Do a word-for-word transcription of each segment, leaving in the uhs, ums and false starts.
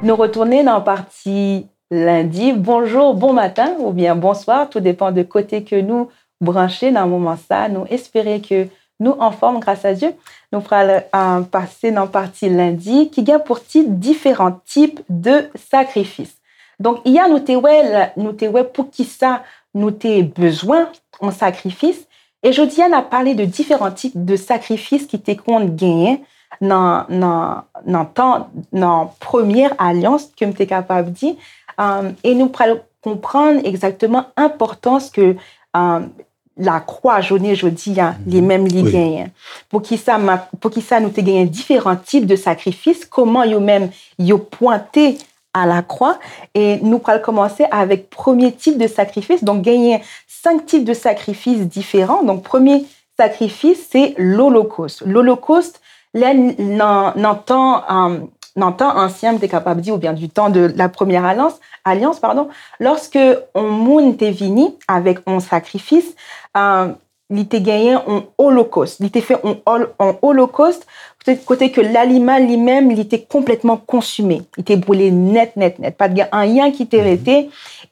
Nou retounen nan pati lendi. Bonjou, bon maten oubyen bonswa, tou depan de kote ke nou branche nan moman sa. Nou espere ke nou anfòm, gras a Dye. Nou pral, euh, pase nan pati lendi ki gen pou tit diferan tip de sakrifis. Donk, yè nou te wè, la- nou te wè poukisa nou te bezwen yon sakrifis. E jodi a, n ap pale de diferan tip de sakrifis ki te konn genyen nan, nan, nan tan, nan premyè alyans, ke m te kapab di. Um, e nou pral konprann egzakteman enpòtans ke, um, lakwa jounen jodi a, li menm li genyen. Poukisa, ma- poukisa nou te genyen diferan tip de sakrifis, kòman yo menm yo pwente a lakwa. E nou pral kòmanse avèk premye tip de sakrifis. Donk, genyen senk tip de sakrifis diferan. Donk, premye sakrifis, se lolokos. Lolokos, lè n- nan, nan tan, um, nan tan ansyen, m te kapab di, oubyen du temps de la première alliance, alliance, pardon, lòske yon moun te vini avèk yon sakrifis, um, li te genyen yon olokos. Li te fè yon ol- yon olokos, kote, kote ke lanimal li menm, li te konplètman konsime. Li te boule nèt, nèt, nèt. Pa t gen anyen ki te rete.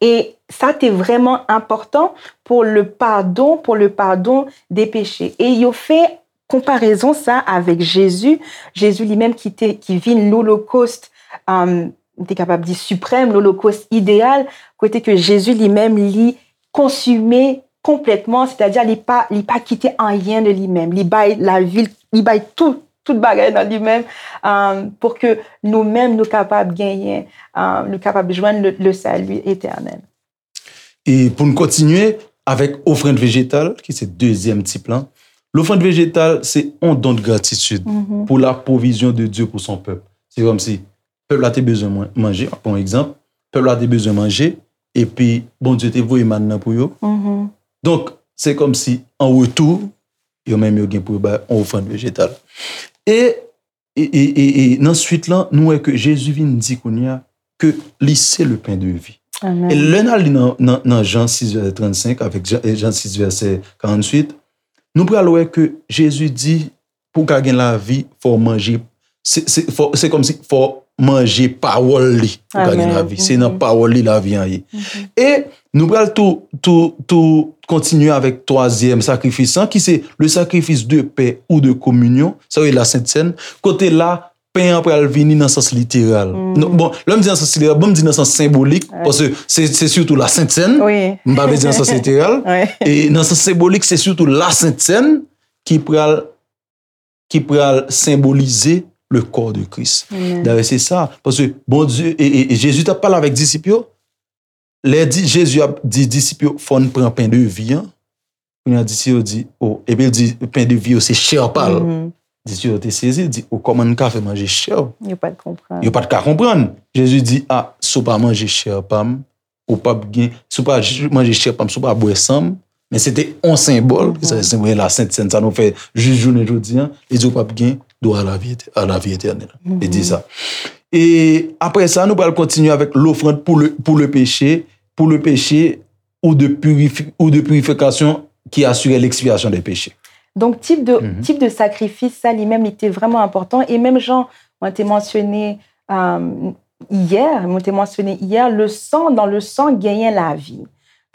E sa te vrèman enpòtan pou le pardon, pou le pardon de peche. E yo fè konparezon sa avèk Jezi. Jezi li menm ki te, ki vin lolokos, um, m te kapab di siprèm, lolokos ideyal, kote ke Jezi li menm li konsime konplètman, sètadi li pa, li pa kite anyen de li menm. Li bay lavi l, li bay tout, tout bagay nan li menm, um, pou ke nou menm nou kapab genyen, um, nou kapab jwenn le, le salut éternel. E pou n kontinye avèk ofrann vejetal, ki se dezyèm tip lan, lofrann vejetal se yon don de gratitid pou la pwovizyon de Dye pou son pèp. Se kòmsi pèp la te bezwen manje, an pran yon egzanp, pèp la te bezwen manje, epi Bondye te voye mann nan pou yo. Donk, se kòmsi an retou, yo menm yo gen pou yo bay yon ofrann vejetal. E, e, e, e, e nan swit lan, nou wè ke Jezi vin di kounye a ke li se le pen de vi. E lè n al li nan, nan, nan Jan sis vèsè trannsenk avèk Jan, Jan sis vèsè karantuit, nou pral wè ke Jezi di, pou w ka gen lavi, fò w manje. Se, se, fò, se kòmsi fò w manje pawòl li pou w ka gen lavi. Se nan pawòl li lavi an ye. E nou pral tou, tou, tou kontinye avèk twazyèm sakrifis lan, ki se le sacrifice de paix ou de communion, sa yo rele la Sent Sèn, kote la, pen an pral vini nan sans literal. Non, bon, lè m di nan sans literal, bon, m di nan sans senbolik, paske se, se sitou la Sent Sèn. M pa vle di nan sans literal. E nan sans senbolik, se sitou la Sent Sèn ki pral, ki pral senbolize le corps de Christ. Dayè, se sa. Paske Bondye, e, e, e Jezi t ap pale avèk disip yo. Lè di, Jezi ap di disip yo, fò n pran pen de vi an. Kounye a, disip yo di, o, epi l di, pen de vi yo se chè pa l. Disip yo te sezi, di, o, kòman n ka fè manje chè w? Yo pa t konprann. Yo pa t ka konprann. Jezi di, a, si w pa manje chè pa m, ou p ap gen, si w pa manje chè pa m, si w pa bwè san m, men se te yon senbòl, ki se senbòl la Sent Sèn, sa nou fè jis jounen jodi an, li di ou p ap gen dwa a lavi, a lavi etènèl. Li di sa. E apre sa, nou pral kontinye avèk lofrann pou le, pou le peche, pou le peche ou de purifi, ou de purification qui assure l'expiation des péchés. Donk, tip de, tip de sakrifis sa, li menm, li te vrèman enpòtan. E menm jan mwen te mansyone, euh, yè, mwen te mansyone yè, le sang, dans le sang, genyen lavi.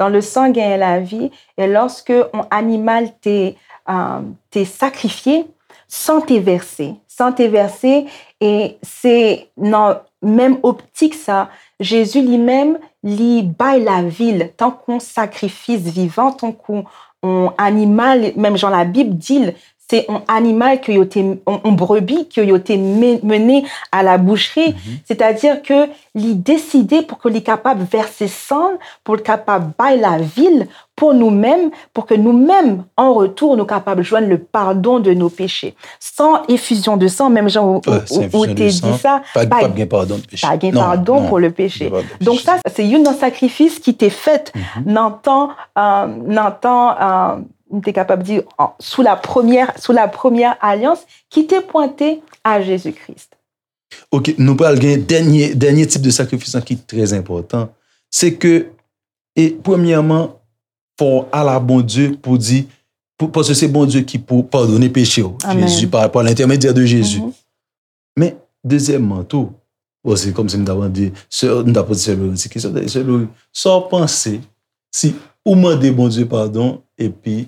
Dans le sang, genyen lavi. E lòske yon animal te, euh, te sakrifye, san te vèse. San te vèse, e se nan menm optik sa, Jezi li menm, li bay lavi l tankou yon sakrifis vivan, tankou yon animal, menm jan Labib di l, se yon animal ke yo te, yon, yon brebi ke yo te men-, mennen à la boucherie. Sètadi ke li deside pou ke li kapab vèse san l, pou l kapab bay lavi l pou nou menm, pou ke nou menm, an retou, nou kapab jwenn le pardon de nos péchés. San efizyon de san, menm jan ou, ou, ou te di sa, pa, pa gen padon pou le peche. Donk sa, se youn nan sakrifis ki te fèt nan tan, euh, nan tan, euh, m te kapab di, sou la premyè, sou la premyè alyans, ki te pwente a Jezi Kris. Ok, nou pral gen dènye, dènye tip de sakrifis lan ki trè enpòtan. Se ke, e premyèman, fò w al a Bondye pou di, pou, paske se Bondye ki pou padone peche w. Jezi, pa, pa lentèmedyè de Jezi. Men, dezyèmman tou, bon, se kòmsi m ta mande, sè, m ta poze sè Lori ti kesyon, sè Lori, sa w panse si ou mande Bondye padon, epi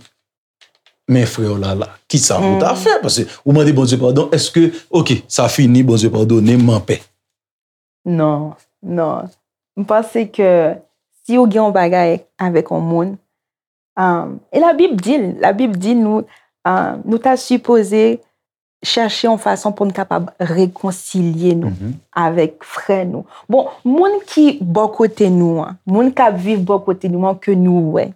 men frè w la la, kisa ou ta fè? Paske ou mande Bondye padon, èske, oke, sa fini, Bondye padone, m anpè? Non, non. M panse ke si ou gen yon bagay avèk yon moun, um, e Labib di l, Labib di nou, um, nou ta sipoze chèche yon fason pou n kapab rekonsilye nou avèk frè nou. Bon, moun ki bò kote nou an, moun k ap viv bò kote nou an ke nou wè,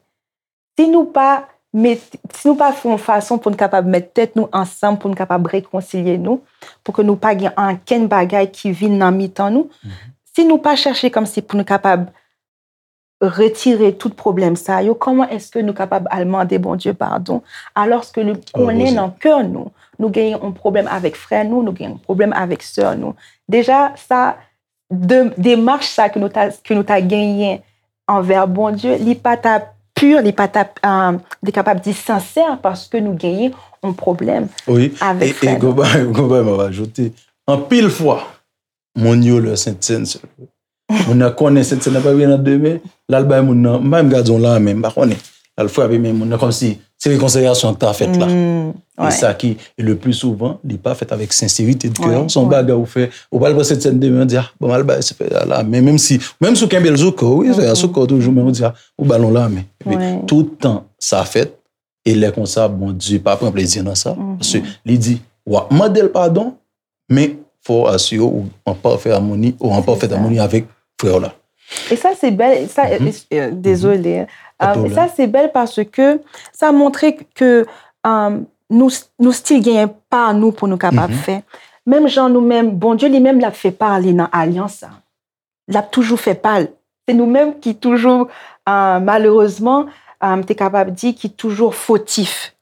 si nou pa met, si nou pa fè yon fason pou n kapab met tèt nou ansanm, pou n kapab rekonsilye nou, pou ke nou pa gen ankenn bagay ki vin nan mitan nou, si nou pa chèche kòmsi pou nou kapab retire tout pwoblèm sa yo, kòman èske nou kapab al mande Bondye padon, alòske li konnen nan kè nou, nou genyen yon pwoblèm avèk frè nou, nou genyen yon pwoblèm avèk sè nou? Deja, sa, de, demach sa ke nou ta, ke nou ta genyen anvè Bondye, li pa ta pur, li pa ta, um, li kapab di sensè, paske nou genyen yon pwoblèm avèk frè nou. Wi, e, e, gon bagay, gon bagay m ap ajoute. Anpil fwa, moun yo lè Sentsèn, moun nan konnen Sentsèn nan pa vin nan demen, l al bay moun nan, m pa menm gade yon lame, m pa konnen. L al frape men moun nan kòmsi se rekonsilyasyon ki ta fèt la. E sa ki, e le pli souvan, li pa fèt avèk senserite de kè. Se yon bagay ou fè, ou pral pran Sentsèn demen, ou di, ah, bon, m al bay se frè a lame. Menm si, menm si ou kenbe l sou kò, wi, frè a sou kò toujou, men ou di, ah, ou ba l yon lame. Epi, tout tan sa fèt, e lè konsa, Bondye pa pran plezi nan sa. Paske li di, w ap mande l padon, men fò w asire w an pafè amoni, ou an pafèt amoni avèk frè w la. E sa se bèl, sa, e, e, dezole, hein. Um, e sa se bèl paske sa montre ke, um, nou, nou still genyen pa nou pou nou kapab fè. Menm jan nou menm, Bondye li menm l ap fè pa li nan alyans sa. L ap toujou fè pa l. Se nou menm ki toujou, uh, malerezman, um, te kapab di ki toujou fotif.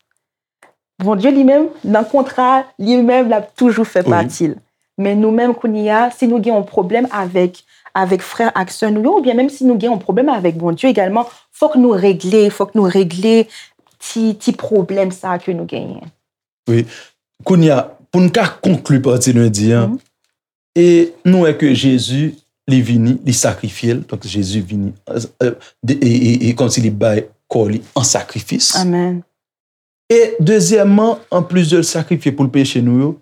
Bondye li menm, nan kontra, li menm, l ap toujou fè pati l. Men nou menm, kounye a, si nou gen yon pwoblèm avèk, avèk frè ak sè nou yo, oubyen menm si nou gen yon pwoblèm avèk Bondye egalman, fòk nou regle, fòk nou regle ti, ti pwoblèm sa a ke nou genyen. Wi. Kounye a, pou n ka konkli pati lendi an, e nou wè ke Jezi, li vini, li sakrifye l, donk Jezi vini, e, e, e, e kòmsi li bay kò li an sakrifis. Amèn. E dezyèmman, anplis de l sakrifye pou l peche nou yo,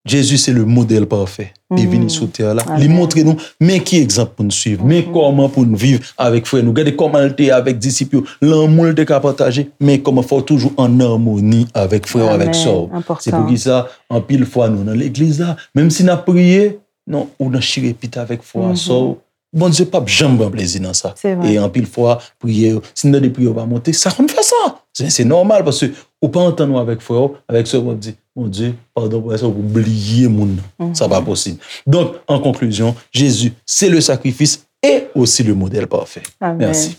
Jezi se le modèl pafè. Li vini sou tè la. Li montre nou, men ki egzanp pou n swiv, men kòman pou n viv avèk frè nou. Gade kòman l te avèk disip yo, lanmou l te ka pataje, men kòman fò w toujou an amoni avèk frè w, avèk sè w. Se poukisa, anpil fwa, nou nan legliz la, menm si n ap priye, non, ou nan chire pit avèk frè w, sè w, Bondye p ap janm pran plezi nan sa. E anpil fwa, priyè yo, si n tande priyè yo pa monte, sa konn fè sa. Se, se nòmal, paske ou pa antann ou avèk frè w, avèk sè w, w ap di, Bondye, padon pou sa, ou bliye moun nan. Sa pa posib. Donk, an konklizyon, Jezi, se le sakrifis e osi le modèl pafè. Mèsi.